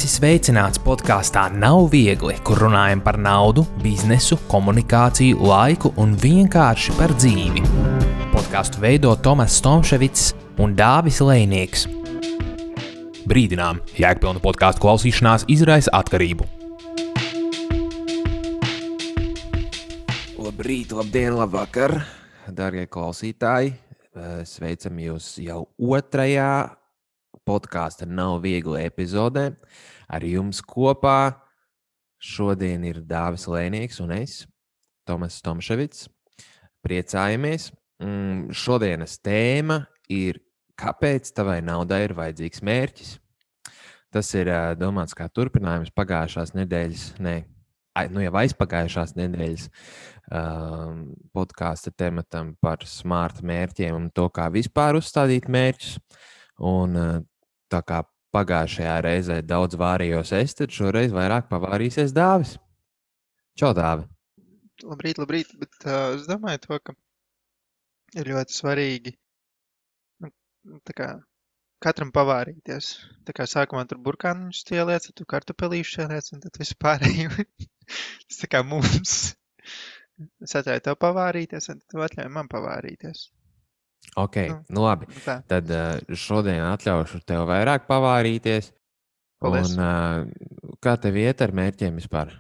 Esi sveicināts podkāstā Nav viegli, kur runājam par naudu, biznesu, komunikāciju, laiku un vienkārši par dzīvi. Podkāstu veido Tomas Tomševics un Dāvis Lejnieks. Brīdinām, jēgpilna podkāstu klausīšanās izraisa atkarību. Labrīt, labdien, labvakar, dārgie klausītāji. Sveicam jūs jau otrajā podkāsta Nav viegli epizodē. Ar jums kopā šodien ir Dāvis Lejnieks un es, Tomas Tomševics. Priecājamies. Šodienas tēma ir, kāpēc tavai naudai ir vajadzīgs mērķis. Tas ir domāts kā turpinājums pagājušās nedēļas, jau aizpagājušās nedēļas podkāsta tematam par smart mērķiem un to, kā vispār uzstādīt mērķus. Un tā kā pagājušajā reizē daudz vārījos es, tad šoreiz vairāk pavārīsies Dāvis. Čau, Dāvi! Labrīt, bet es domāju to, ka ir ļoti svarīgi tā kā katram pavārīties. Tā kā sākumā tur burkāniņus ieliec, tad tu kartupelīšus ieliec un tad visu pārējo. Tas tā kā mums. Es atļauju tev pavārīties un tu atļauj man pavārīties. Ok, labi. Tad šodien atļaušu tev vairāk pavārīties. Paldies. Un kā tev iet ar mērķiem vispār?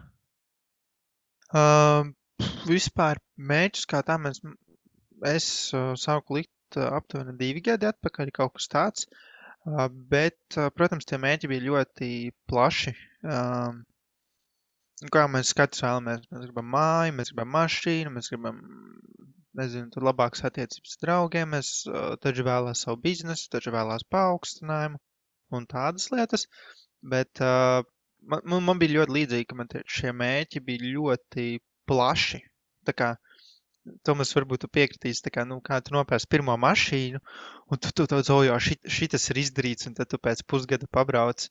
Vispār mērķus kā tā es sāku likt aptuveni 2 gadi atpakaļ, kaut kas tāds. Bet, protams, tie mērķi bija ļoti plaši. Kā mēs katrs vēlamies? Mēs gribam māju, mēs gribam mašīnu, mēs gribam, tur labākas attiecības ar draugiem, mēs taču vēlās savu biznesu, taču vēlās paaugstinājumu un tādas lietas. Bet man bija ļoti līdzīgi, ka man šie mērķi bija ļoti plaši. Tā kā, Tomas, varbūt tu piekritīsi, tā kā, kā tu nopērsi pirmo mašīnu, un tu šitas ir izdarīts, un tad tu pēc pusgada pabrauc,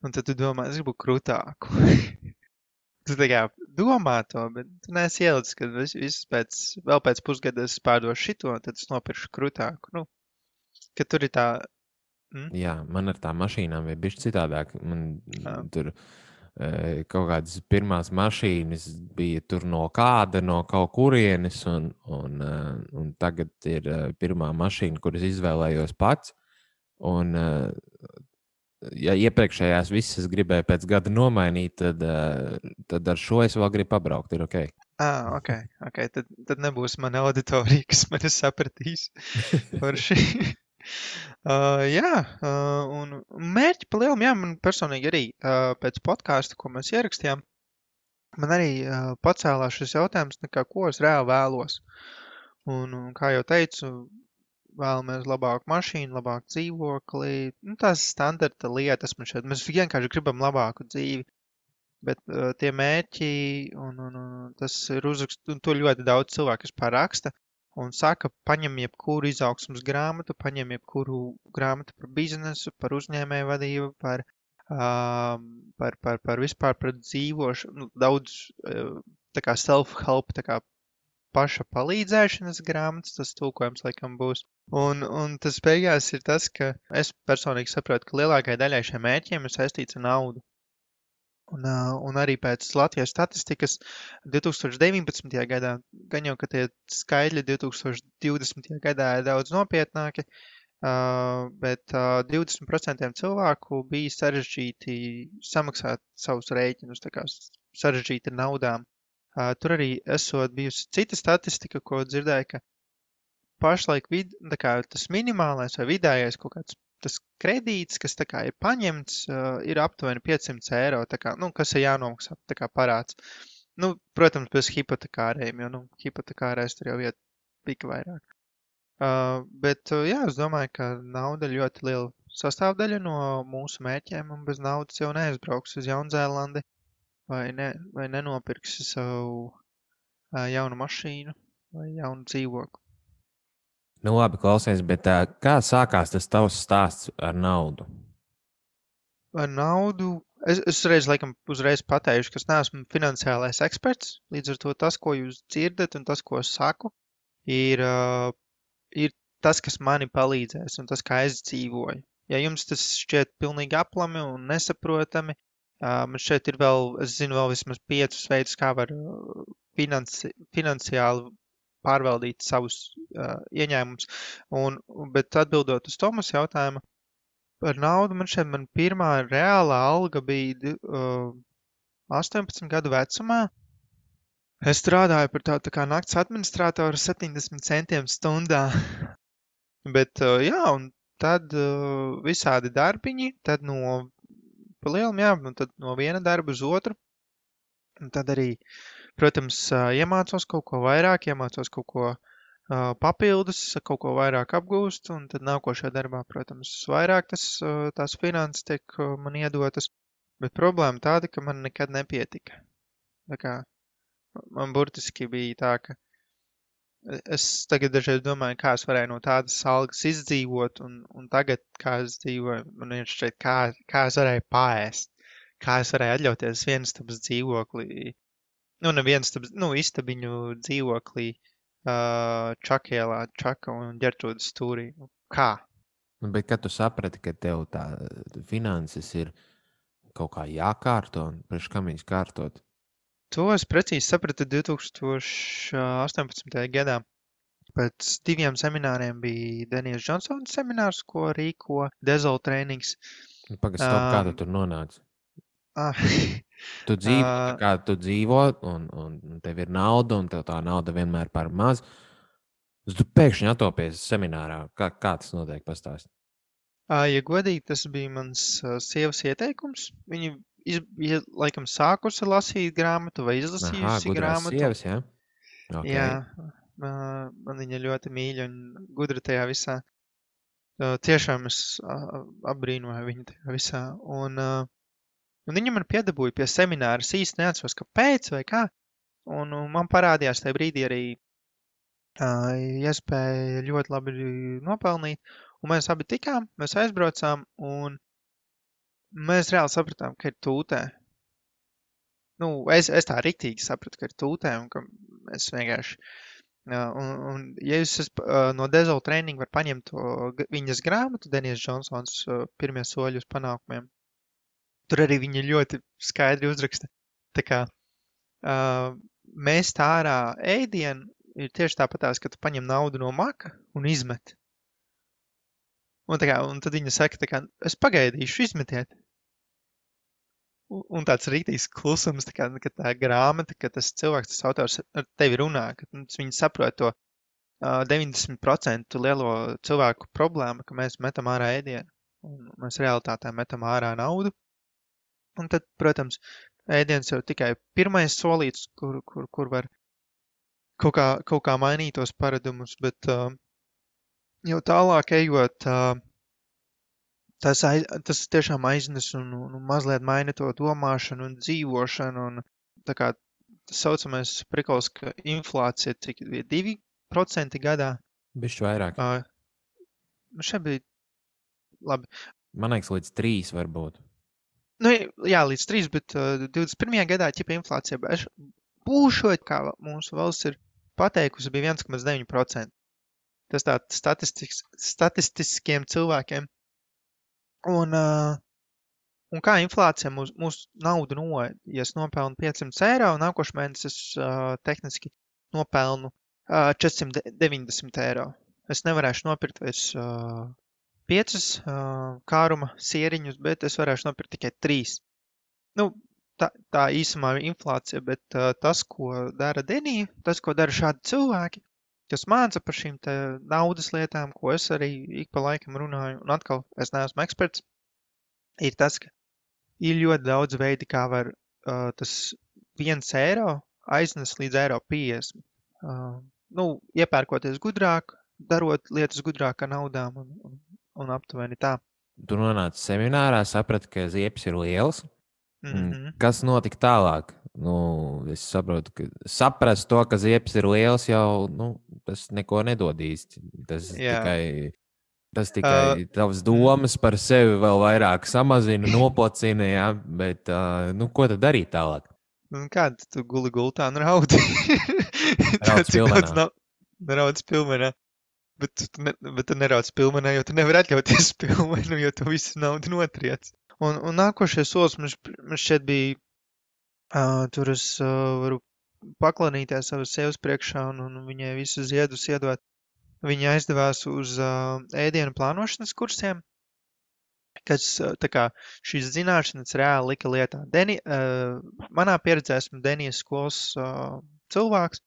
un tad tu domā, es gribu krūtāku. Tu tā kā domā to, bet tu neesi ielicis, ka vēl pēc pusgada es pārdošu šito, un tad es nopiršu krūtāku. Ka tur ir tā... Jā, man ar tām mašīnām bija bišķi citādāk. Man tur kaut kādas pirmās mašīnas bija tur no kaut kurienes, un tagad ir pirmā mašīna, kuras izvēlējos pats. Un, ja iepriekšējās visas gribēju pēc gada nomainīt, tad ar šo es vēl gribu pabraukt, ir ok. Ok. Tad nebūs mana auditorija, kas mani sapratīs par šī. Un mērķi pa lielam, man personīgi arī pēc podkāsta, ko mēs ierakstījām, man arī pacēlās šis jautājums, ko es reāli vēlos. Un kā jau teicu, vēlamies labāku mašīnu, labāku dzīvokli, tās standarta lietas mēs vienkārši gribam labāku dzīvi, bet tie mērķi, un tas ir uzrakst, un to ļoti daudz cilvēku raksta, un saka, paņem jebkuru izaugsmas grāmatu, paņem jebkuru grāmatu par biznesu, par uzņēmēju vadību, par vispār par dzīvošanu, daudz tā kā self-help, tā kā paša palīdzēšanas grāmatas, tas tulkojums laikam būs. Un tas beigās ir tas, ka es personīgi saprotu, ka lielākai daļai šiem mērķiem ir saistīts ar naudu. Un arī pēc Latvijas statistikas 2019. gadā, gan jau, ka tie skaitļi 2020. gadā ir daudz nopietnāki, bet 20% cilvēku bija sarežģīti samaksāt savus rēķinus, tā kā sarežģīti ar naudām. Tur arī esot bijusi cita statistika, ko dzirdēju, ka pašlaik tas minimālais vai vidējais kaut kāds tas kredīts, kas tā kā ir paņemts, ir aptuveni 500 eiro, tā kā, kas ir jānomaksā, tā kā parāds. Protams, bez hipotekārējiem, jo, hipotekārēs tur jau iet pika vairāk. Bet, es domāju, ka nauda ir ļoti liela sastāvdaļa no mūsu mērķiem, un bez naudas jau neaizbrauks uz Jaunzēlandi. Vai nenopirksi savu jaunu mašīnu vai jaunu dzīvokli. Labi, klausies, bet kā sākās tas tavs stāsts ar naudu? Ar naudu? Es uzreiz pateikšu, ka es neesmu finansiālais eksperts, līdz ar to tas, ko jūs dzirdat un tas, ko es saku, ir tas, kas mani palīdzēs un tas, kā es dzīvoju. Ja jums tas šķiet pilnīgi aplami un nesaprotami, Man šeit ir vēl, es zinu vēl vismaz 5 veidus, kā var finansiāli pārvaldīt savus ieņēmumus. Bet atbildot uz Tomas jautājumu par naudu, man pirmā reālā alga bija 18 gadu vecumā. Es strādāju par tā kā nakts administratoru 70 centiem stundā. Bet, jā, un tad visādi darbiņi, tad pa lielam, jā, un tad no viena darba uz otru. Un tad arī, protams, iemācos kaut ko vairāk, iemācos kaut ko papildus, kaut ko vairāk apgūst, un tad nākošajā darbā, protams, vairāk tās finanses tiek man iedotas. Bet problēma tāda, ka man nekad nepietika. Tā kā man burtiski bija tā, ka es tagad dažreiz domāju, kā es varēju no tādas algas izdzīvot, un tagad, kā es dzīvoju, man ir šeit, kā es varēju paēst, kā es varēju atļauties vienstabas dzīvoklī, istabiņu dzīvoklī Čakielā, Čaka un Ģertrūdas stūrī. Kā? Bet kad tu saprati, ka tev tā finanses ir kaut kā jākārto, un priekš kam viņas kārtot? To es precīzi sapratu 2018. gadā. Pēc 2 semināriem bija Denijas Džonsona seminārs, ko rīko Dezol Trainings. Pagaidām, kā tu tur nonāci? Tu dzīvo, tā kā tu dzīvo, un tev ir nauda, un tev tā nauda vienmēr par maz. Tu pēkšņi atopies seminārā. Kā tas notiek? Pastāst. Ja godīgi, tas bija mans sievas ieteikums. Viņa bija laikam sākusi lasīt grāmatu vai izlasījusi grāmatu. Sievas, jā? Okay. Jā, man viņa ļoti mīļa un gudra tajā visā. Tiešām es apbrīnoju viņu tajā visā. Un viņa man piedabūja pie semināra. Es īsti neatceros, kāpēc vai kā. Un man parādījās tajā brīdī arī iespēja ļoti labi nopelnīt. Un mēs abi tikām, mēs aizbraucām, un mēs reāli sapratām, ka ir tūtē. Es tā riktīgi sapratu, ka ir tūtē, un ka mēs vienkārši... Un ja jūs no Dezol Training var paņemt viņas grāmatu, Denijas Džonsons pirmie soļi uz panākumiem, tur arī viņa ļoti skaidri uzraksta. Tā kā mēs tā ārā ēdienu ir tieši tāpatās, ka tu paņem naudu no maka un izmet. Un tad viņa saka, es pagaidīšu, izmetiet. Un tāds rītīgs klusums, ka tā grāmata, ka tas cilvēks, tas autors ar tevi runā, ka viņi saprot to 90% lielo cilvēku problēmu, ka mēs metam ārā ēdienu. Un mēs realitātē metam ārā naudu. Un tad, protams, ēdiens jau tikai pirmais solīts, kur var kaut kā mainīt tos paradumus, bet jau tālāk ejot, tas tiešām aiznes un mazliet maina to domāšanu un dzīvošanu. Un tā kā tas saucamais prikols, ka inflācija cik bija 2% gadā. Bišķi vairāk. Šeit bija labi. Man liekas, līdz 3 varbūt. Jā, līdz 3, bet 21. gadā ķipa inflācija būšot, kā mūsu valsts ir pateikusi, bija 1,9%. Tas tā statistiskiem cilvēkiem. Un kā inflācija mūsu naudu noēd? Ja es nopelnu 500 eiro, nākošais mēnesis es tehniski nopelnu 490 eiro. Es nevarēšu nopirkt vairs 5 kāruma sieriņus, bet es varēšu nopirkt tikai 3. Tā īsumā ir inflācija, bet tas, ko dara Denija, tas, ko dara šādi cilvēki, kas māca par šīm te naudas lietām, ko es arī ik pa laikam runāju, un atkal es neesmu eksperts, ir tas, ka ir ļoti daudz veidi, kā var tas 1 eiro aiznes līdz eiro 50. Iepērkoties gudrāk, darot lietas gudrāk ar naudām un aptuveni tā. Tu nonāci seminārā, saprati, ka ziepes ir lielas. Kas notika tālāk? Es saprotu, ka saprast to, ka ziepes ir liels, jau tas neko nedod īsti. Tas tikai tavas domas par sevi vēl vairāk samazina, nopocina, jā, bet ko tad darīt tālāk? Kāda tu guli gultā un raudi? Rauds pilmenā. Bet tu nerauc pilmenā, jo tu nevari atļauties pilmenu, jo tu visu naudu notriec. Un nākošais solis man šķiet bija, tur es varu paklanīties savas sievas priekšā un viņai visu ziedus iedot. Viņa aizdevās uz ēdienu plānošanas kursiem, kas tā kā šīs zināšanas reāli lika lietā. Manā pieredzē esmu Denijas skolas cilvēks,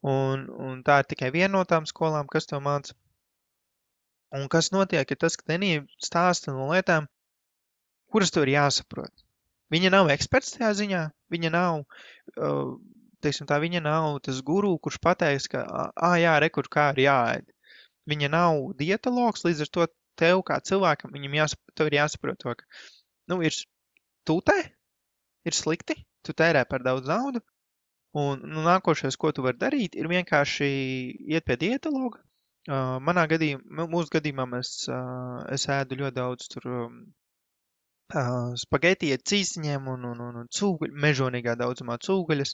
un tā ir tikai viena no tām skolām, kas to māca. Un kas notiek, ir tas, ka Denija stāsta no lietām, kuras tev ir jāsaprot. Viņa nav eksperts tajā ziņā, viņa nav, teiksim tā, viņa nav tas guru, kurš pateiks, ka, jā, rekur, kā ir jāēd. Viņa nav dietologs, līdz ar to tev kā cilvēkam, tev ir jāsaprot to, ka, ir tūtē, ir slikti, tu tērē par daudz naudu, un nākošais, ko tu vari darīt, ir vienkārši iet pie dietologa. Mūsu gadījumā es ēdu ļoti daudz tur spageti ar cīsiņiem un cūgaļu, mežonīgā daudzumā cūgaļas.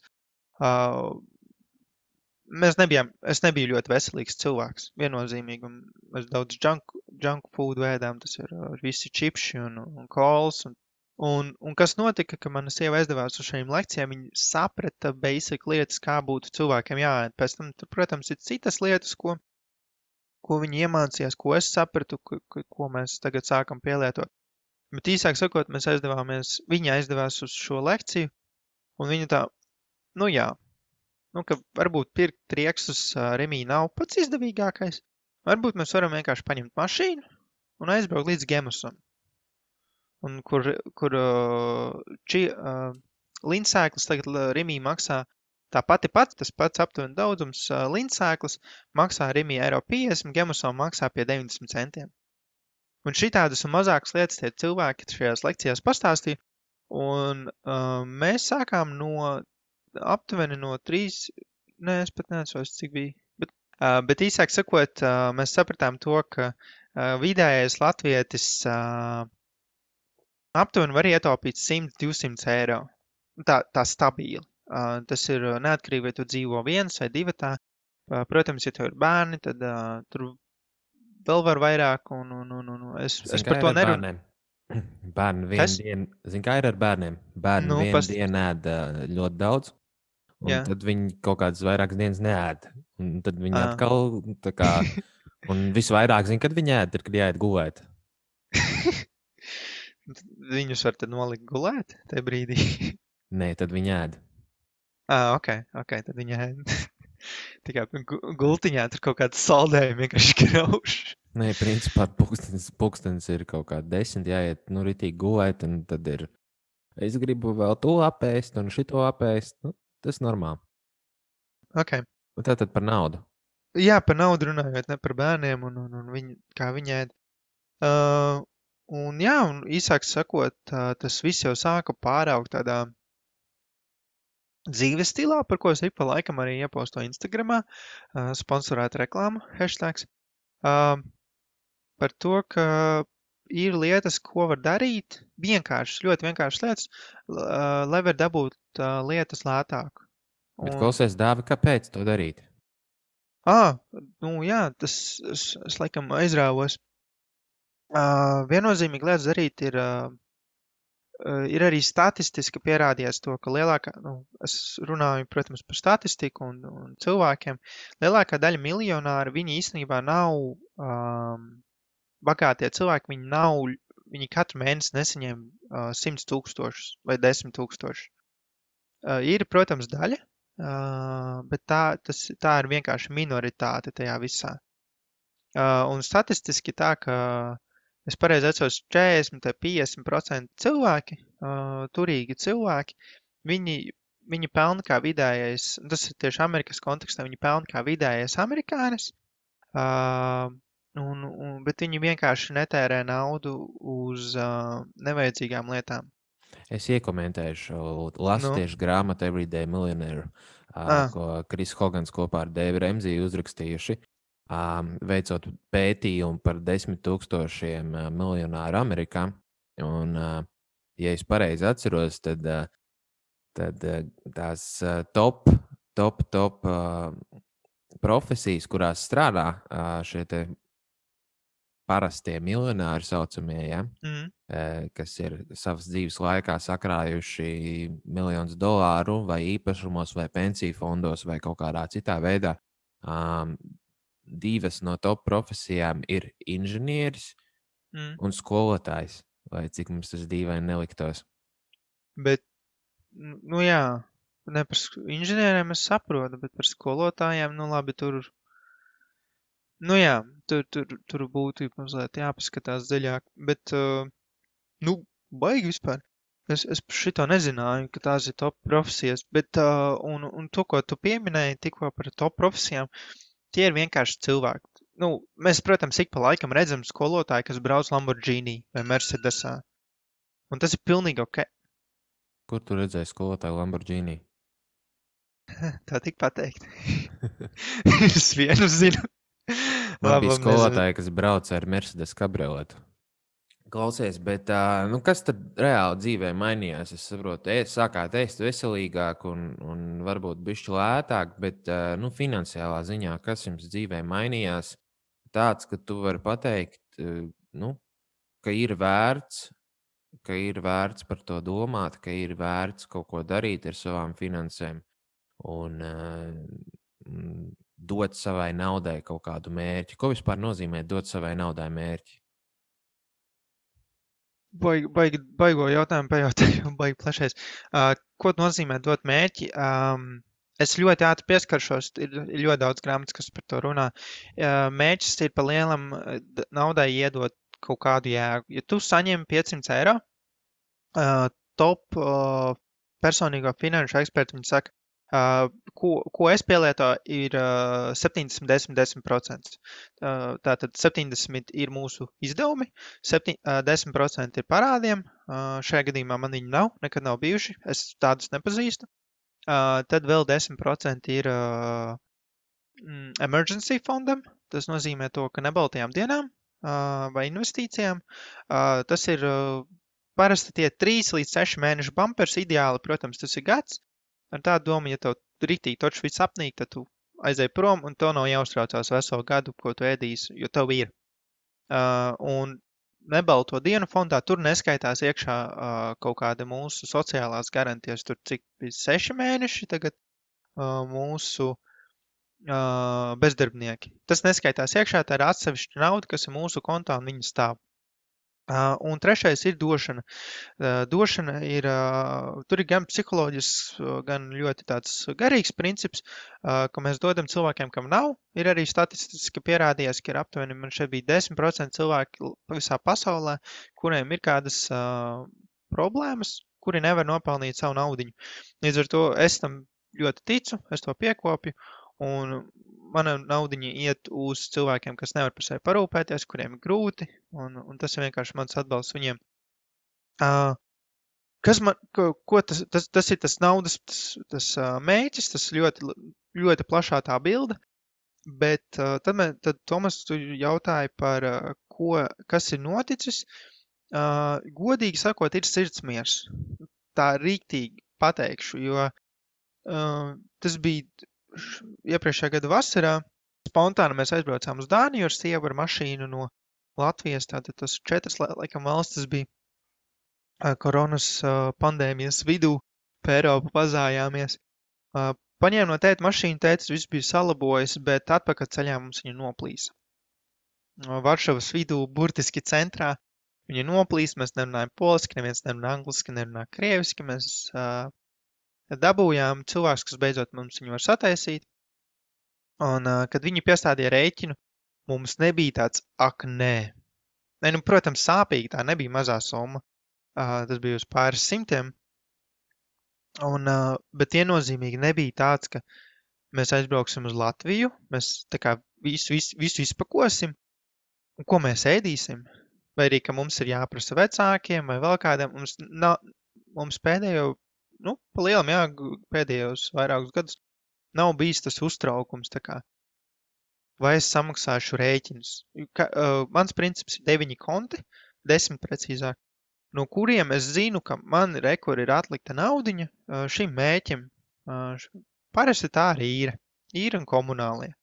Es nebiju ļoti veselīgs cilvēks, viennozīmīgi, un mēs daudz junk food ēdām, tas ir visi čipši un kols, un kas notika, ka mana sieva aizdevās uz šīm lekcijām, viņa saprata basic lietas, kā būtu cilvēkiem jāēd. Pēc tam, protams, ir citas lietas, ko viņi iemācījās, ko es sapratu, ko mēs tagad sākam pielietot. Bet īsāk sakot, viņa aizdevās uz šo lekciju, un viņa tā, ka varbūt pirkt trieksus Remī nav pats izdevīgākais. Varbūt mēs varam vienkārši paņemt mašīnu un aizbraukt līdz Gemusam. Un kur lindsēklis tagad Remī maksā tas pats aptuveni daudzums lindsēklis maksā Remī €50, Gemusam maksā pie 90 centiem. Un šitādas un mazākas lietas tie cilvēki šajās lekcijās pastāstīja, un mēs sākām aptuveni no 3, es pat neatceros, cik bija, bet īsāk sakot, mēs sapratām to, ka vidējais latvietis aptuveni var ietaupīt 100-200 eiro. Tā stabili. Tas ir neatkarīgi, vai tu dzīvo viens vai divatā. Protams, ja tev ir bērni, tad tur vēl var vairāk, un es par to nerunāju. Bērni vienu dienu, zin kā ir ar bērniem? Bērni vienu dienu ēd ļoti daudz, un tad viņi kaut kādas vairākas dienas neēd. Un tad viņi atkal, tā kā, un visvairāk zin, kad viņi ēd, ir, kad jāiet gulēt. Viņus var tad nolikt gulēt tajā brīdī? Nē, tad viņi ēd. Ok, tad viņi ēd. Tikai gultiņā tur kaut kāds saldējumi vienkārši krauš. Nē, principā pulkstenis ir kaut kā 10, jāiet, ritīgi gulēt, un tad ir, es gribu vēl to apēst un šito apēst, tas normāli. Ok. Un tātad par naudu. Jā, par naudu runājot, ne par bērniem un kā viņi ēd. Un īsāk sakot, tas viss jau sāka pāraugt tādā dzīves stilā, par ko es ik pa laikam arī iepostu Instagramā, sponsorēta reklāma, hashtags, par to, ka ir lietas, ko var darīt, ļoti vienkāršas lietas, lai var dabūt lietas lētāk. Bet klausies, Dāvi, kāpēc to darīt? Tas es laikam aizrāvos. Viennozīmīgi lietas darīt ir arī statistiski pierādījies to, ka es runāju, protams, par statistiku un cilvēkiem, lielākā daļa miljonāri, viņi īstenībā nav bagātie cilvēki, viņi katru mēnesi nesaņem 100,000 vai 10,000. Ir, protams, daļa, bet tā ir vienkārši minoritāte tajā visā. Un statistiski tā, ka es pareizi atceros 40 vai 50% cilvēki, turīgi cilvēki, viņi pelna kā vidējais, tas ir tieši Amerikas kontekstā, viņi pelna kā vidējais amerikānis, bet viņi vienkārši netērē naudu uz nevajadzīgām lietām. Es iekomentēšu, lasu tieši grāmatu Everyday Millionaire, ko Kris Hogans kopā ar Dēvi Remziju uzrakstījuši. Veicot pētījumu par 10,000 miljonāru Amerikā. Un, ja es pareizi atceros, tad tās top profesijas, kurās strādā šie te parastie miljonāri saucamie, ja? Kas ir savas dzīves laikā sakrājuši miljonus dolāru vai īpašumos vai pensiju fondos vai kaut kādā citā veidā. Divas no top profesijām ir inženieris un skolotājs, vai cik mums tas dīvaini neliktos. Bet, nu jā, ne par inženieriem es saprotu, bet par skolotājiem, nu labi, tur, nu jā, tur būtu mazliet jāpaskatās dziļāk, bet, nu, baigi vispār. Es šito nezināju, ka tās ir top profesijas, bet, un to, ko tu pieminēji tikko par top profesijām, tie ir vienkārši cilvēki. Nu, mēs, protams, ik pa laikam redzam skolotāju, kas brauc Lamborghini vai Mercedesā. Un tas ir pilnīgi ok. Kur tu redzēji skolotāju Lamborghini? Tā tik pateikt. Es vienu zinu. Man bija skolotāji, kas brauc ar Mercedes kabrioletu. Klausies, bet nu, kas tad reāli dzīvē mainījās? Es saprotu, sākāt ēst veselīgāk un varbūt bišķi lētāk, bet nu, finansiālā ziņā, kas jums dzīvē mainījās? Tāds, ka tu vari pateikt, nu, ka ir vērts par to domāt, ka ir vērts kaut ko darīt ar savām finansēm un dot savai naudai kaut kādu mērķi. Ko vispār nozīmē dot savai naudai mērķi? Baigo jautājumu pajautāju, baigi plašais. Ko nozīmē dot mērķi? Es ļoti ātri pieskaršos, ir ļoti daudz grāmatas, kas par to runā. Mērķis ir pa lielam naudai iedot kaut kādu jēgu. Ja tu saņem 500 eiro, top personīgo finanšu eksperti, viņi saka, ko es pielietoju, ir 70-10%. Tātad 70 ir mūsu izdevumi, 10% ir parādiem. Šajā gadījumā man viņi nav, nekad nav bijuši, es tādus nepazīstu. Tad vēl 10% ir emergency fondam. Tas nozīmē to, ka nebaltajām dienām vai investīcijām. Tas ir parasti tie 3 līdz 6 mēnešu bumpers. Ideāli, protams, tas ir gads. Ar tādu domu, ja tev ritīgi točs viss apnīk, tad tu aizēj prom un tev nav jāuztraucās veselu gadu, ko tu ēdīsi, jo tev ir. Un nebalto dienu fondā tur neskaitās iekšā kaut kāda mūsu sociālās garantijas, tur cik bija 6 mēneši tagad mūsu bezdarbnieki. Tas neskaitās iekšā, tā ir atsevišķa nauda, kas ir mūsu kontā un viņa stāv. Un trešais ir došana. Došana ir, tur ir gan psiholoģisks, gan ļoti tāds garīgs princips, ka mēs dodam cilvēkiem, kam nav. Ir arī statistiski pierādījās, ka ir aptuveni, man šeit bija 10% cilvēki visā pasaulē, kuriem ir kādas problēmas, kuri nevar nopelnīt savu naudiņu. Līdz ar to es tam ļoti ticu, es to piekopju, un mana naudiņa iet uz cilvēkiem, kas nevar par sevi parūpēties, kuriem ir grūti, un tas ir vienkārši mans atbalsts viņiem. Tas ir tas naudas tas mēķis, tas ļoti plašā tā bilde, bet tad Tomas, tu jautāji par kas ir noticis. Godīgi sakot, ir sirdsmiers. Tā rīktīgi pateikšu, jo tas bija iepriekšējā gada vasarā. Spontāni mēs aizbraucām uz Dāniju ar sievu ar mašīnu no Latvijas. Tātad tas 4 laikam valstis bija koronas pandēmijas vidū, pa Eiropu pazājāmies. Paņēmu no tēta mašīnu, tētis viss bija salabojis, bet atpakaļ ceļā mums viņa noplīsa. Varšavas vidū, burtiski centrā, viņa noplīsa, mēs nerunājam poliski, neviens nerunā angliski, nerunā krieviski, mēs dabūjām cilvēks, kas beidzot mums viņu var sataisīt. Un, kad viņi piestādīja rēķinu, mums nebija tāds, ak, nē. Nē, nu, protams, sāpīgi, tā nebija mazā summa. Tas bija uz pāris simtiem. Bet viennozīmīgi nebija tāds, ka mēs aizbrauksim uz Latviju, mēs tā kā visu izpakosim, un ko mēs ēdīsim. Vai arī, ka mums ir jāprasa vecākiem vai vēl kādiem. Mums pēdējo, pa lielam, pēdējos vairākus gadus nav bijis tas uztraukums, tā kā, vai es samaksāšu rēķinus. Mans princips ir 9 konti, 10 precīzāk, no kuriem es zinu, ka man rekur ir atlikta naudiņa šim mēķim. Parasti tā arī īra un komunālie.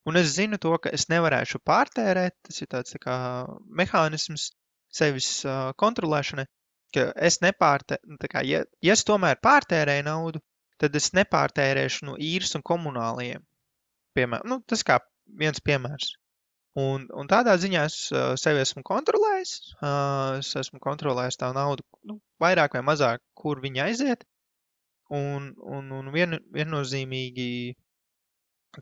Un es zinu to, ka es nevarēšu pārtērēt, tas ir tāds tā kā mehānisms sevis kontrolēšanai, ka es tā kā, ja es tomēr pārtērēju naudu, tad es nepārtērēšu no īres un komunālajiem. Piemēram, tas kā viens piemērs. Un tādā ziņā es sevi esmu kontrolējis. Es esmu kontrolējis tā naudu, vairāk vai mazāk, kur viņa aiziet. Un viennozīmīgi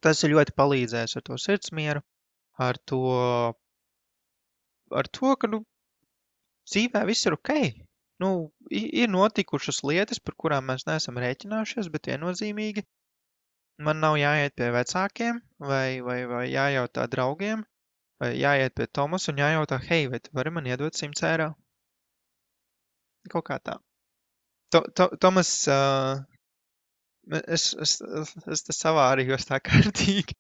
tas ir ļoti palīdzējis ar to sirdsmieru, ar to, ka, dzīvē viss ir ok. Ir notikušas lietas, par kurām mēs neesam rēķinājušies, bet viennozīmīgi man nav jāiet pie vecākiem vai jājautā draugiem, vai jāiet pie Tomas un jājautā, hei, vai tu vari man iedot 100 eiro? Kaut kā tā. Tomas, es te savārījos tā kārtīgi,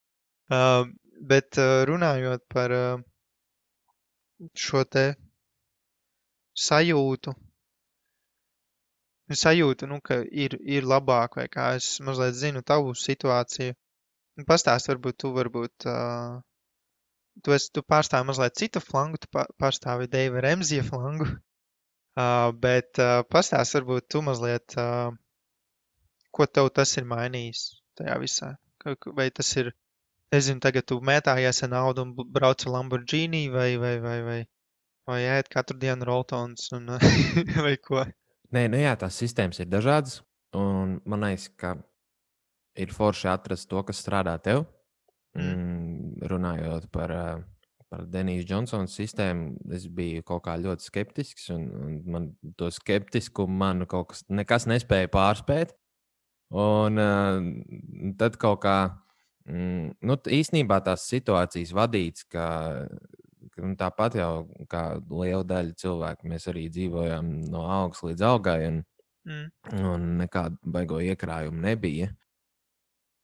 bet runājot par šo te sajūtu, ka ir labāk, vai kā es mazliet zinu tavu situāciju. Pastāst, varbūt tu pārstāvi mazliet citu flangu, tu pārstāvi Deiva Remzija flangu, bet pastāst, varbūt tu mazliet, ko tev tas ir mainījis tajā visā. Vai tas ir, nezinu, tagad tu mētājies ar naudu un brauc ar Lamborghini, vai ēd katru dienu Roltons, un vai ko? Nē, jā, tās sistēmas ir dažādas, un man liekas, ka ir forši atrast to, kas strādā tev. Runājot par Denīsu Džonsonu sistēmu, es biju kaut kā ļoti skeptisks, un man to skeptiskumu kaut kas nekas nespēja pārspēt. Un tad kaut kā, īstenībā tās situācijas vadīts, ka tāpat jau kā liela daļa cilvēku, mēs arī dzīvojām no augas līdz augai, un nekādu baigo iekrājumu nebija.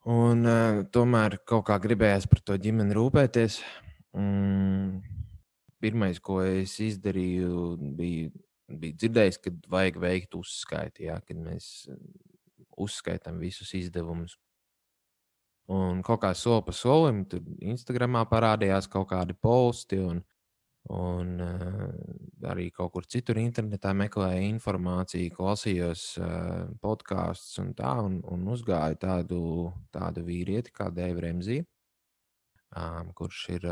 Un tomēr kaut kā gribējās par to ģimeni rūpēties. Pirmais, ko es izdarīju, bija dzirdējis, ka vajag veikt uzskaiti, kad mēs uzskaitām visus izdevumus. Un kaut kā soli pa solim, tur Instagramā parādījās kaut kādi posti, un arī kaut kur citur internetā meklēju informāciju, klausījos podkāstus un uzgāju tādu vīrieti kā Deivu Remziju, kurš ir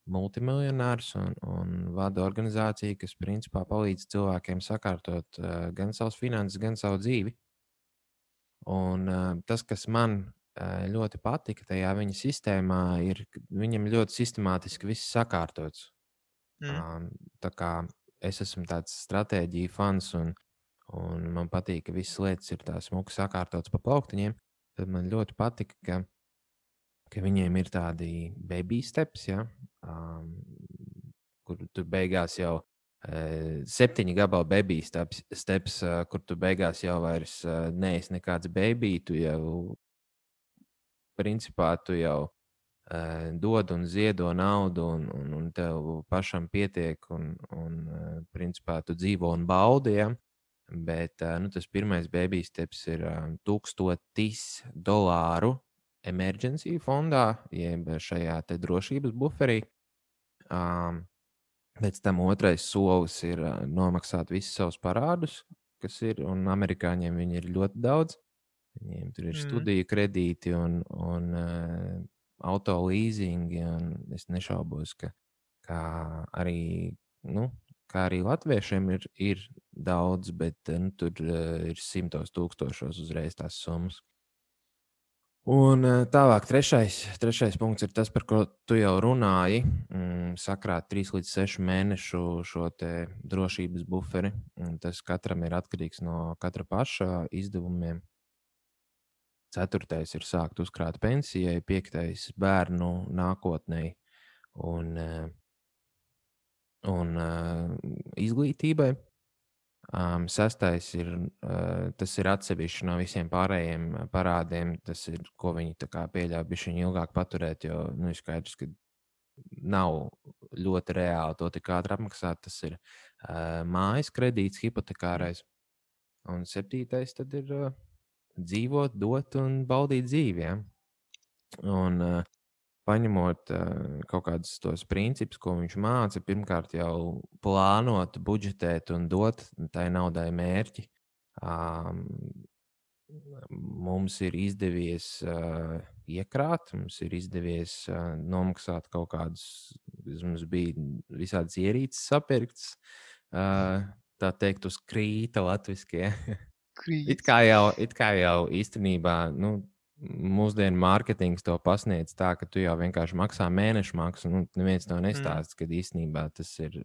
multimiljonārs un vada organizāciju, kas principā palīdz cilvēkiem sakārtot gan savas finanses, gan savu dzīvi. Un tas, kas man ļoti patika tajā viņa sistēmā, ir, ka viņam ļoti sistemātiski viss sakārtots. Tā kā es esmu tāds stratēģiju fans, un man patīk, ka visas lietas ir tā smuki sakārtotas pa plauktiņiem, tad man ļoti patika, ka viņiem ir tādi baby steps, kur tu beigās jau 7 gabalu baby steps, kur tu beigās jau vairs neesi nekāds baby, tu jau principā dod un ziedo naudu, un tev pašam pietiek, un principā tu dzīvo un baudi. Ja? Bet tas pirmais baby steps ir $1000 emergency fondā, jeb šajā te drošības buferī. Pēc tam otrais solis ir nomaksāt visus savus parādus, kas ir, un amerikāņiem viņi ir ļoti daudz. Viņiem tur ir studiju kredīti un auto leasingi, un es nešaubos, ka arī latviešiem ir daudz, bet tur ir 100 000 uzreiz tās summas. Un tālāk, trešais punkts ir tas, par ko tu jau runāji. Sakrāt 3 līdz 6 mēnešu šo te drošības buferi. Tas katram ir atkarīgs no katra paša izdevumiem. 4. ir sākt uzkrāt pensijai, 5. bērnu nākotnei un izglītībai. 6. tas ir atsevišķi no visiem pārējiem parādiem. Tas ir, ko viņi pieļauj bišķiņ ilgāk paturēt, jo ir skaidrs, ka nav ļoti reāli to tik ātri apmaksāt. Tas ir mājas kredīts, hipotekārais. Un 7. tad ir dzīvot, dot un baudīt dzīvi. Ja? Un paņemot kaut kādus tos principus, ko viņš māca, pirmkārt jau plānot, budžetēt un dot tai naudai mērķi. Mums ir izdevies iekrāt, mums ir izdevies nomaksāt kaut kādus, mums bija visādas ierīces sapirktas, tā teikt, uz krīta latviskie. It kā jau īstenībā, mūsdienu mārketings to pasniedz tā, ka tu jau vienkārši maksā mēnešu maksu. Neviens to nestāsta, ka īstenībā tas ir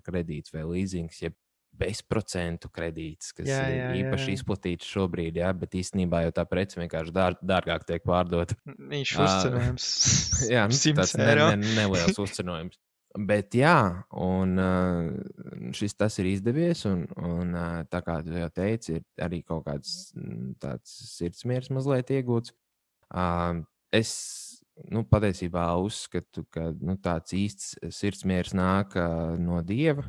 kredīts vai līzings, jeb bezprocentu kredīts, kas ir īpaši izplatīts šobrīd, bet īstenībā jau tā prece vienkārši dārgāk tiek pārdota. Viņš uzcenojums. Jā, tas neliels uzcenojums. Bet jā, un tas ir izdevies, un tā kā tu jau teici, ir arī kaut kāds tāds sirdsmiers mazliet iegūts. Es patiesībā uzskatu, ka tāds īsts sirdsmiers nāk no Dieva,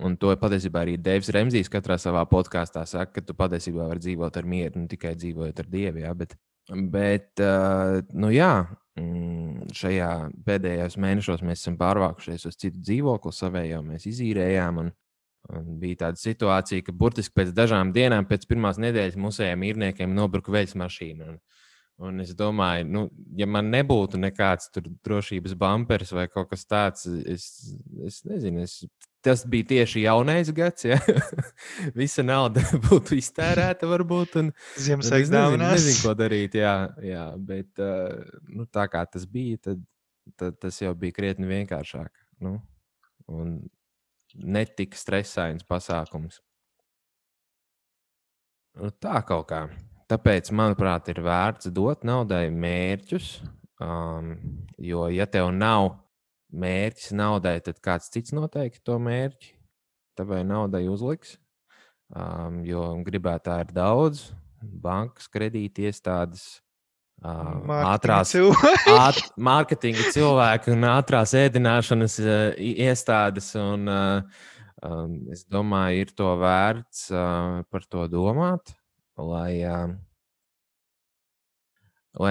un to patiesībā arī Deivs Remzijs katrā savā podkāstā saka, ka tu patiesībā vari dzīvot ar mieru, tikai dzīvojot ar Dievu, jā, bet jā, šajā pēdējos mēnešos mēs esam pārvākušies uz citu dzīvokli, savējo mēs izīrējām, un bija tāda situācija, ka burtiski pēc dažām dienām, pēc pirmās nedēļas mūsējiem īrniekiem nobruka veļas mašīna. Un es domāju, ja man nebūtu nekāds tur drošības bumpers vai kaut kas tāds, es nezinu, tas bija tieši jaunais gads, ja? Visa nauda būtu iztērēta varbūt. Ziemassvētku dāvanās. Nezinu, ko darīt, jā, bet tā kā tas bija, tad tas jau bija krietni vienkāršāk. Un netik stresains pasākums. Tā kaut kā. Tāpēc, manuprāt, ir vērts dot naudai mērķus, jo, ja tev nav mērķis naudai, tad kāds cits noteikti to mērķi tavai naudai uzliks, jo gribētāji ir daudz, bankas, kredīti iestādes, mārketinga cilvēki un ātrās ēdināšanas iestādes, un es domāju, ir to vērts par to domāt, lai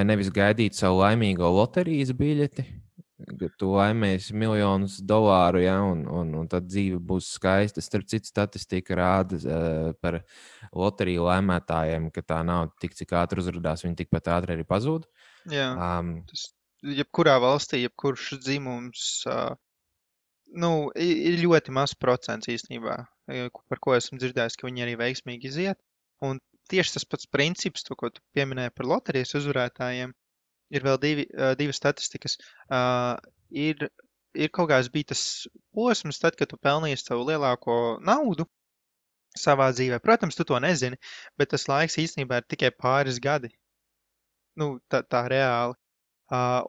nevis gaidītu savu laimīgo loterijas biļeti, ka tu laimēsi miljonus dolāru, ja, un tad dzīve būs skaista. Starp citu, statistika rāda par loteriju laimētājiem, ka tā nauda tik cik ātri uzrādās, viņi tikpat ātri arī pazūd. Jā, tas jebkurā valstī, jebkurš dzimums, ir ļoti mazs procents īstenībā, par ko esmu dzirdējis, ka viņi arī veiksmīgi iziet. Un tieši tas pats princips, to, ko tu pieminēji par loterijas uzvarētājiem, ir vēl divas statistikas. Ir kaut kāds bija tas posms, tad, kad tu pelnīsi savu lielāko naudu savā dzīvē. Protams, tu to nezini, bet tas laiks īstenībā ir tikai pāris gadi. Tā reāli.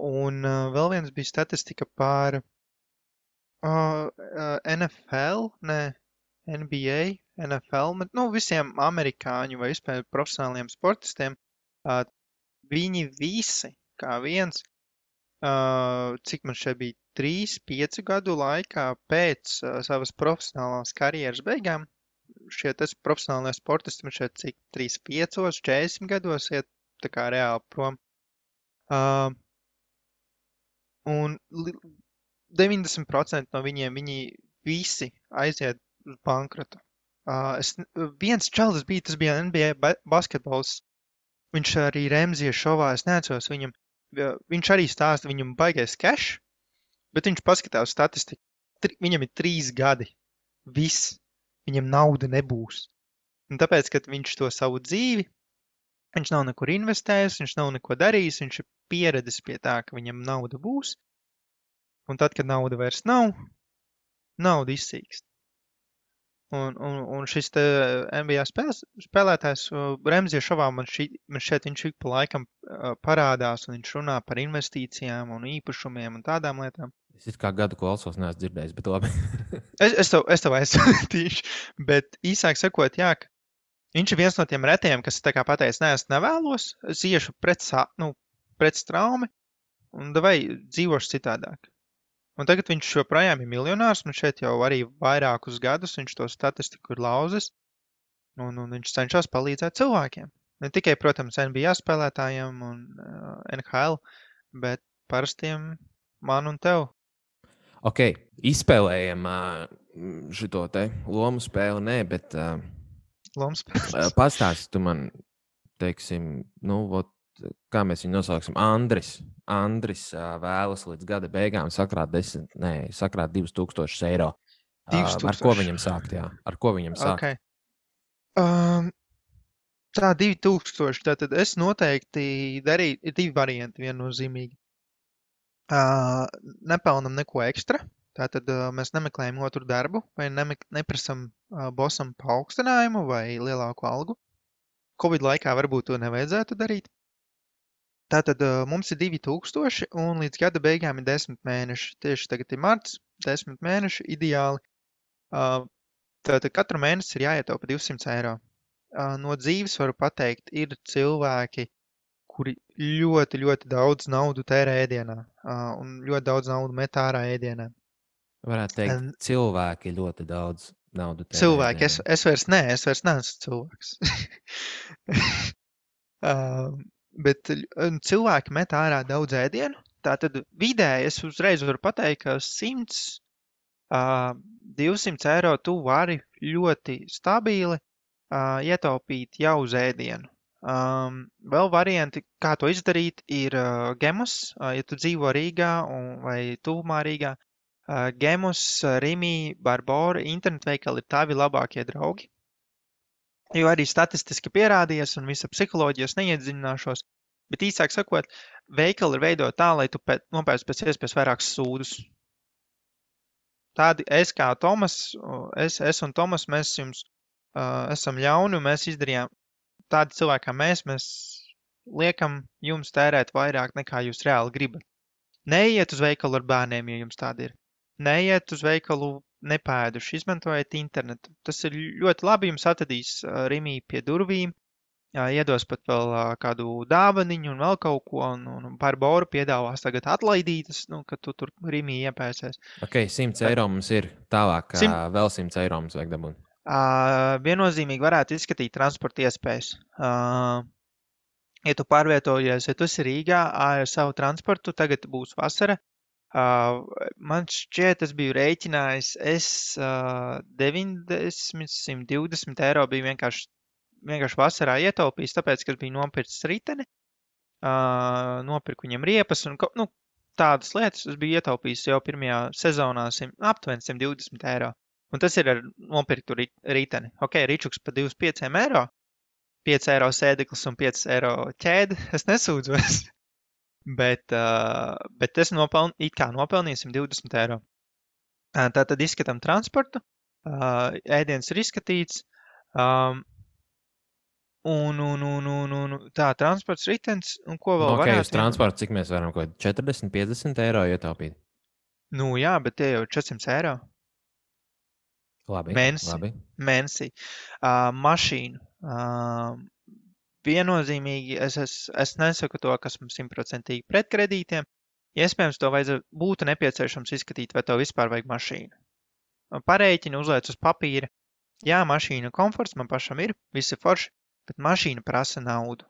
Un vēl viens bija statistika par NFL, NBA, NFL, visiem amerikāņu vai vispār profesionāliem sportistiem. Viņi visi, kā viens, cik man šeit bija 3-5 gadu laikā pēc savas profesionālās karjeras beigām, šie profesionālie sportisti man šeit cik 35, 40 gados iet tā kā reāli prom. Un 90% no viņiem, viņi visi aiziet uz bankrotu. Viens čalis bija, tas bija NBA basketbols. Viņš arī Remzija šovā, es neatceros viņam, viņš arī stāsta, viņam baigais cash, bet viņš paskatās statistiku. Viņam ir 3 gadi. Viss. Viņam nauda nebūs. Un tāpēc, kad viņš to savu dzīvi, viņš nav nekur investējis, viņš nav neko darījis, viņš ir pieredzis pie tā, ka viņam nauda būs. Un tad, kad nauda vairs nav, nauda izsīkst. Un šis te NBA spēlētājs Remzija šovā man šeit viņš ik pa laikam parādās, un viņš runā par investīcijām un īpašumiem un tādām lietām. Es kā gadu klausos, neesmu dzirdējis, bet labi. es tev aizsūtīšu, bet īsāk sakot, jā, viņš ir viens no tiem retajiem, kas tā kā pateicis, nē, es nevēlos, es iešu pret straumi un vai dzīvošu citādāk. Un tagad viņš joprojām ir miljonārs, un šeit jau arī vairākus gadus viņš to statistiku ir lauzis, un viņš cenšas palīdzēt cilvēkiem. Ne tikai, protams, NBA spēlētājiem un NHL, bet parastiem man un tev. Ok, izspēlējam šito te lomu spēli, nē, bet Lomspēles. pastāsti tu man, teiksim, kā mēs viņu nosauksim, Andris vēlas līdz gada beigām sakrāt 2000 eiro. Ar ko 2000. viņam sākt, jā? Ar ko viņam sākt? Okay. Tā 2000, tātad es noteikti darīju, ir 2 varianti viennozīmīgi. Nepelnam neko ekstra, tātad mēs nemeklējam otru darbu, vai neprasam bosam paaugstinājumu vai lielāku algu. Covid laikā varbūt to nevajadzētu darīt. Tātad mums ir 2000 un līdz gada beigām ir 10 mēneši. Tieši tagad ir marts, 10 mēneši ideāli. Tātad katru mēnesi ir jāietaupa 200 eiro. No dzīves varu pateikt, ir cilvēki, kuri ļoti, ļoti daudz naudu tērē ēdienā un ļoti daudz naudu met ārā ēdienā. Varētu teikt, cilvēki ļoti daudz naudu tērē. Cilvēki, es vairs neesmu cilvēks. Bet cilvēki met ārā daudz ēdienu. Tātad vidēji es uzreiz varu pateikt, ka 100, 200 eiro tu vari ļoti stabili ietaupīt jau uz ēdienu. Vēl varianti, kā to izdarīt, ir Gemus, ja tu dzīvo Rīgā vai tuvumā Rīgā. Gemus, Rimi, Barbora, internetveikali ir tavi labākie draugi. Jo arī statistiski pierādījies un visa psiholoģijas neiedziļināšos, bet īsāk sakot, veikali ir veidot tā, lai tu nopērc pēc iespējas vairākus sūdus. Tādi es kā Tomas, es un Tomas, mēs jums esam ļauni un mēs izdarījām tādi cilvēki kā mēs liekam jums tērēt vairāk nekā jūs reāli gribat. Neiet uz veikalu ar bērniem, ja jums tādi ir. Neiet uz veikalu nepēduši, izmantojiet internetu. Tas ir ļoti labi, jums atradīs Rimī pie durvīm, iedos pat vēl kādu dāvaniņu un vēl kaut ko, un Barbora piedāvās tagad atlaidītas, ka tu tur Rimī iepēsies. Ok, 100 eiro mums ir tālāk, vēl 100 eiro mums vajag dabūt. Viennozīmīgi varētu izskatīt transporta iespējas. Ja tu pārvietojies, ja tu esi Rīgā ar savu transportu, tagad būs vasara. Man šķiet, es biju rēķinājis, 90, 120 eiro biju vienkārši vasarā ietaupījis, tāpēc, ka es biju nopircis riteni, nopirku viņam riepas un tādas lietas. Es biju ietaupījis jau pirmajā sezonā aptuveni 120 eiro. Un tas ir ar nopirktu riteni. Ok, ričuks pa 25 eiro, 5 eiro sēdeklis un 5 eiro ķēde. Es nesūdzos. Bet es nopelnīju 120 eiro. Tātad izskatām transportu. Ēdiens ir izskatīts. Tā, transports, ritens. Un ko vēl varētu? Uz transportu, cik mēs varam, 40, 50 eiro ietaupīt? Jā, bet tie jau ir 400 eiro. Labi. Mēnesī. Mašīnu. Viennozīmīgi es nesaku to, kas mums 100% pret kredītiem. Iespējams, to būtu nepieciešams izskatīt, vai tev vispār vajag mašīnu. Parēķini, uzliec uz papīra. Jā, mašīna komforts man pašam ir, visi forši, bet mašīna prasa naudu.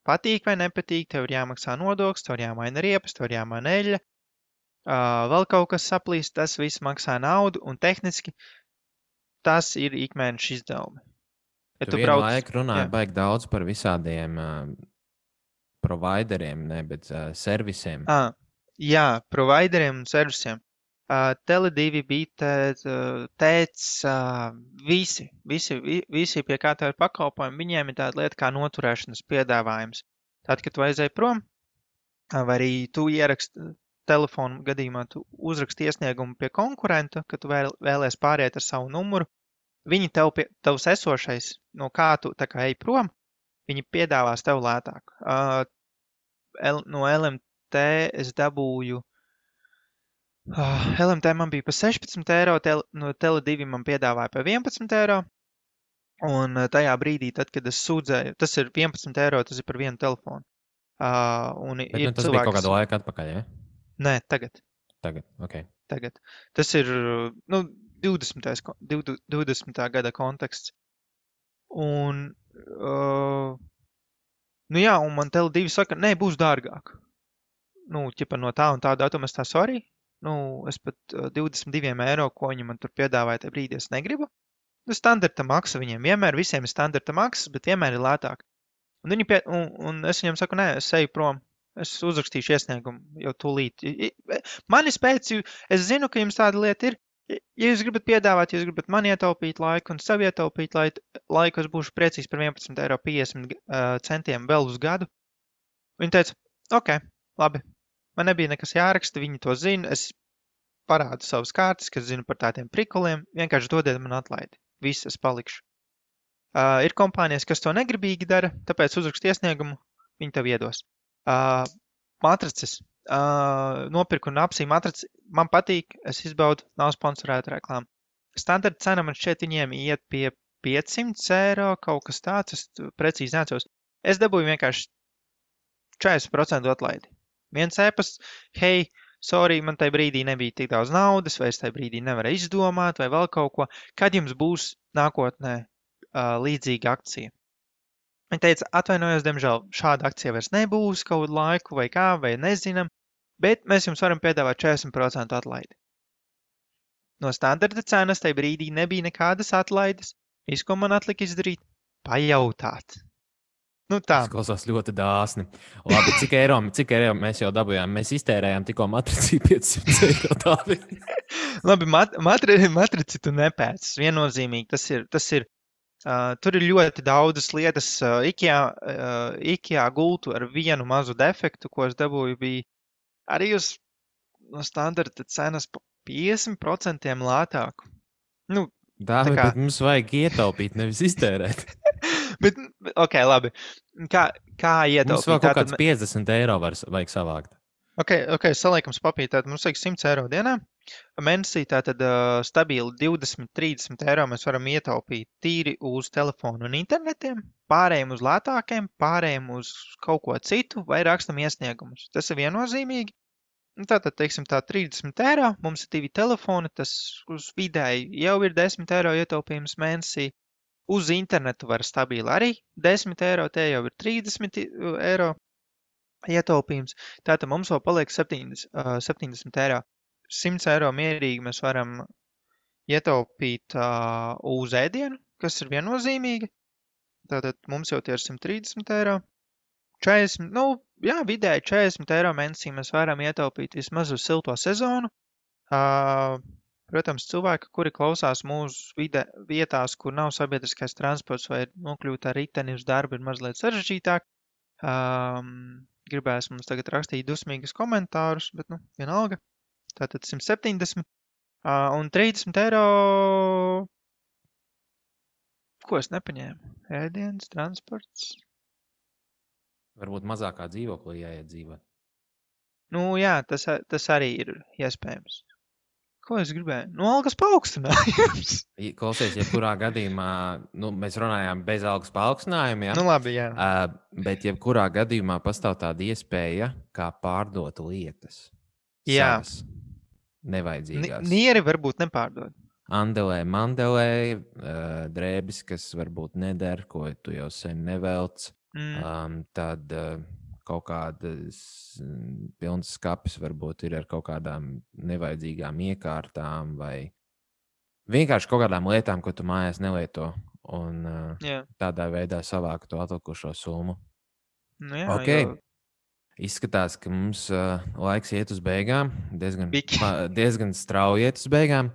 Patīk vai nepatīk, tev ir jāmaksā nodoklis, tev ir jāmaina riepas, tev ir jāmaina eļļa. Vēl kaut kas saplīst, tas viss maksā naudu un tehniski tas ir ikmēneša izdevumi. Ja tu vienu laiku runāji baigi daudz par visādiem provideriem, bet servisiem. Jā, provideriem un servisiem. Tele2, Bitet, Tēts, visi pie kā tev ir pakalpojumi, viņiem ir tāda lieta kā noturēšanas piedāvājums. Tad, kad tu aizēji prom, vai arī tu ieraksti telefonu gadījumā, tu uzraksti iesniegumu pie konkurenta, ka tu vēlies pāriet ar savu numuru, viņi tavs esošais, no kā tu tā kā ej prom, viņi piedāvās tev lētāk. No LMT es dabūju, LMT man bija pa 16 eiro, no Tele2 man piedāvāja pa 11 eiro, un tajā brīdī, tad, kad es sūdzēju, tas ir 11 eiro, tas ir par vienu telefonu. Bet tas bija kaut kādu laiku atpakaļ, ja? Nē, tagad. Ok. Tagad. Tas ir 20. Gada konteksts. Un, un man Tele2 saka, nē, būs dārgāk. ķipa no tā un tā datuma es tā sorry, es pat 22 eiro, ko viņi man tur piedāvāja tajā brīdī, es negribu. Standarta maksa viņiem vienmēr, visiem ir standarta maksas, bet vienmēr ir lētāk. Un es viņam saku, nē, es eju prom, es uzrakstīšu iesniegumu jau tūlīt. Mani spēc, es zinu, ka jums tāda lieta ir. Ja jūs gribat piedāvāt, ja jūs gribat man ietaupīt laiku un sev ietaupīt laiku, es būšu priecīgs par 11,50 € vēl uz gadu. Viņi teica, ok, labi, man nebija nekas jāraksta, viņi to zina, es parādu savas kārtas, kas zinu par tādiem prikuliem, vienkārši dodiet man atlaidi, viss es palikšu. Ir kompānijas, kas to negribīgi dara, tāpēc uzrakst iesniegumu, viņi tev iedos. Matrices. Nopirku un apsīju matrici, man patīk, es izbaudu, nav sponsorēta reklāma. Standarta cena man šķiet viņiem iet pie 500 €, kaut kas tāds, es precīzi neatceros. Es dabūju vienkārši 40% atlaidi. Viens ēpasts, hei, sorry, man tajā brīdī nebija tik daudz naudas, vai es tajā brīdī nevarēju izdomāt, vai vēl kaut ko. Kad jums būs nākotnē līdzīga akcija? Viņa teica, atvainojos, diemžēl šāda akcija vairs nebūs kaut laiku vai kā, vai nezinam, bet mēs jums varam piedāvāt 40% atlaidi. No standarta cenas tajā brīdī nebija nekādas atlaides. Viss, ko man atlika izdarīt, pajautāt. Tā. Tas klausās ļoti dāsni. Labi, cik eiro mēs jau dabūjām? Mēs iztērējām tikko matrici 500 € tādi. Labi, matrici tu nepēcis. Viennozīmīgi, tas ir. Tur ir ļoti daudzas lietas. IKEA gultu ar vienu mazu defektu, ko es dabūju, bija arī uz no standarta cenas pa 50% lētāku. Dāvi, bet mums vajag ietaupīt, nevis iztērēt. Bet, ok, labi. Kā ietaupīt? Mums vēl kaut kāds 50 € vajag savākt. Ok, saliekam papīri, tātad mums vajag 100 € dienā. Mēnesī tātad stabili 20-30 € mēs varam ietaupīt tīri uz telefonu un internetiem, pārējiem uz lētākiem, pārējiem uz kaut ko citu vai rakstam iesniegumus. Tas ir viennozīmīgi. Tātad, teiksim, 30 €, mums ir 2 telefoni, tas uz vidēji jau ir 10 € ietaupījums mēnesī. Uz internetu var stabili arī 10 €, te jau ir 30 € ietaupījums. Tātad mums vēl paliek 70 €. 100 € mierīgi mēs varam ietaupīt uz ēdienu, kas ir viennozīmīgi. Tātad mums jau tie ir 130 €. 40, vidēji 40 € mēnesī mēs varam ietaupīt vismaz uz silto sezonu. Protams, cilvēki, kuri klausās mūsu vietās, kur nav sabiedriskais transports vai nokļūt ar riteni uz darbu, ir mazliet sarežģītāk. Gribēs mums tagad rakstīt dusmīgas komentārus, bet, vienalga. Tātad 170 un 30 €. Ko es nepaņēmu? Ēdienas, transports. Varbūt mazākā dzīvoklī jāiet dzīvot. Jā, tas arī ir iespējams. Ko es gribēju? Algas paaugstinājums. Klausies, jebkurā gadījumā, mēs runājām bez algas paaugstinājuma, jā? Labi, jā. Bet jebkurā gadījumā pastāv tāda iespēja, kā pārdot lietas. Jā. Savas nevajadzīgās. Nieri varbūt nepārdod. Andelē, mandelē, drēbis, kas varbūt neder, ko tu jau sen nevelc. Tad kaut kādas pilnas skapis varbūt ir ar kaut kādām nevajadzīgām iekārtām vai vienkārši kaut kādām lietām, ko tu mājās nelieto. Un tādā veidā savāku to atlikušo summu. Jā, Izskatās, ka mums laiks iet uz beigām. Diezgan strauji iet uz beigām.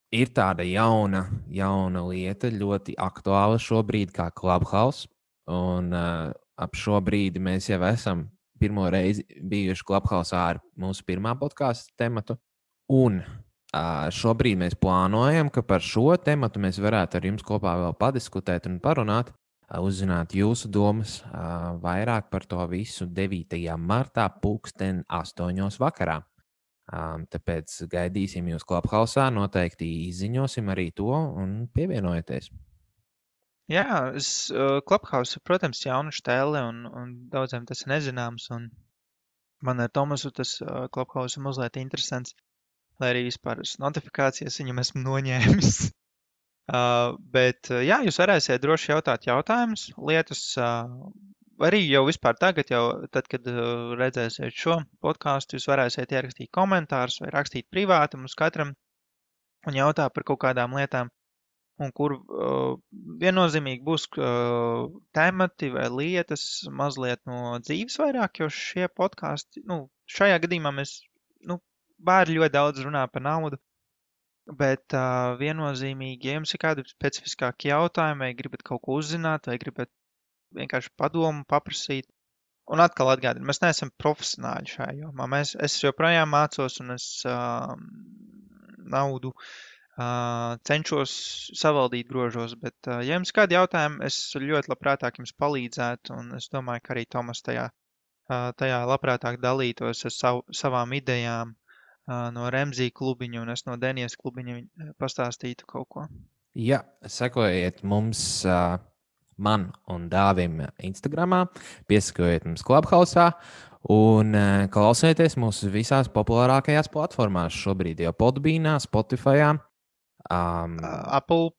Ir tāda jauna lieta, ļoti aktuāla šobrīd, kā Clubhouse. Un ap šo brīdi mēs jau esam pirmo reizi bijuši Clubhouse ar mūsu pirmā podkāstu tematu. Un šobrīd mēs plānojam, ka par šo tematu mēs varētu ar jums kopā vēl padiskutēt un parunāt, uzzināt jūsu domas vairāk par to visu 9. martā 20:08 vakarā. Tāpēc gaidīsim jūs Clubhouse'ā, noteikti izziņosim arī to un pievienojieties. Jā, Clubhouse ir, protams, jauna štēle un daudziem tas ir nezināms. Un man ar Tomasu tas Clubhouse ir mazliet interesants, lai arī vispār notifikācijas viņam esmu noņēmis. Bet, jā, jūs varēsiet droši jautāt jautājumus, lietas, arī jau vispār tagad, tad, kad redzēsiet šo podcastu, jūs varēsiet ierakstīt komentārus vai rakstīt privāti mums katram un jautāt par kaut kādām lietām, un kur viennozīmīgi būs temati vai lietas mazliet no dzīves vairāk, jo šie podkasti, šajā gadījumā mēs, bērni ļoti daudz runā par naudu, bet viennozīmīgi, ja jums ir kādi specifiskāki jautājumi, vai gribat kaut ko uzzināt, vai gribat vienkārši padomu paprasīt. Un atkal atgādinu, mēs neesam profesionāļi šajā jomā. Es joprojām mācos un es naudu cenšos savaldīt grožos, bet ja jums kādi jautājumi, es ļoti labprātāk jums palīdzētu, un es domāju, ka arī Tomas tajā labprātāk dalītos ar savām idejām no Remzī klubiņa, un es no Denijas klubiņa pastāstītu kaut ko. Jā, sekojiet mums... man un Dāvim Instagramā, piesakojiet mums Clubhouse un klausieties mūsu visās populārākajās platformās šobrīd, jau Podbeanā, Spotifyā, Apple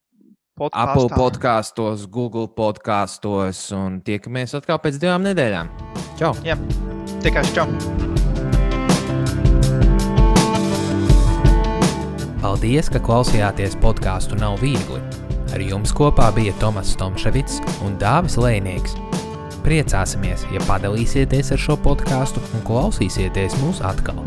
podkastos, Google podkastos un tiekamies atkal pēc 2 nedēļām. Čau! Jā, tikai čau! Paldies, ka klausījāties podcastu Nav viegli. Ar jums kopā bija Tomas Tomševits un Dāvis Lejnieks. Priecāsimies, ja padalīsieties ar šo podcastu un klausīsieties mūs atkal.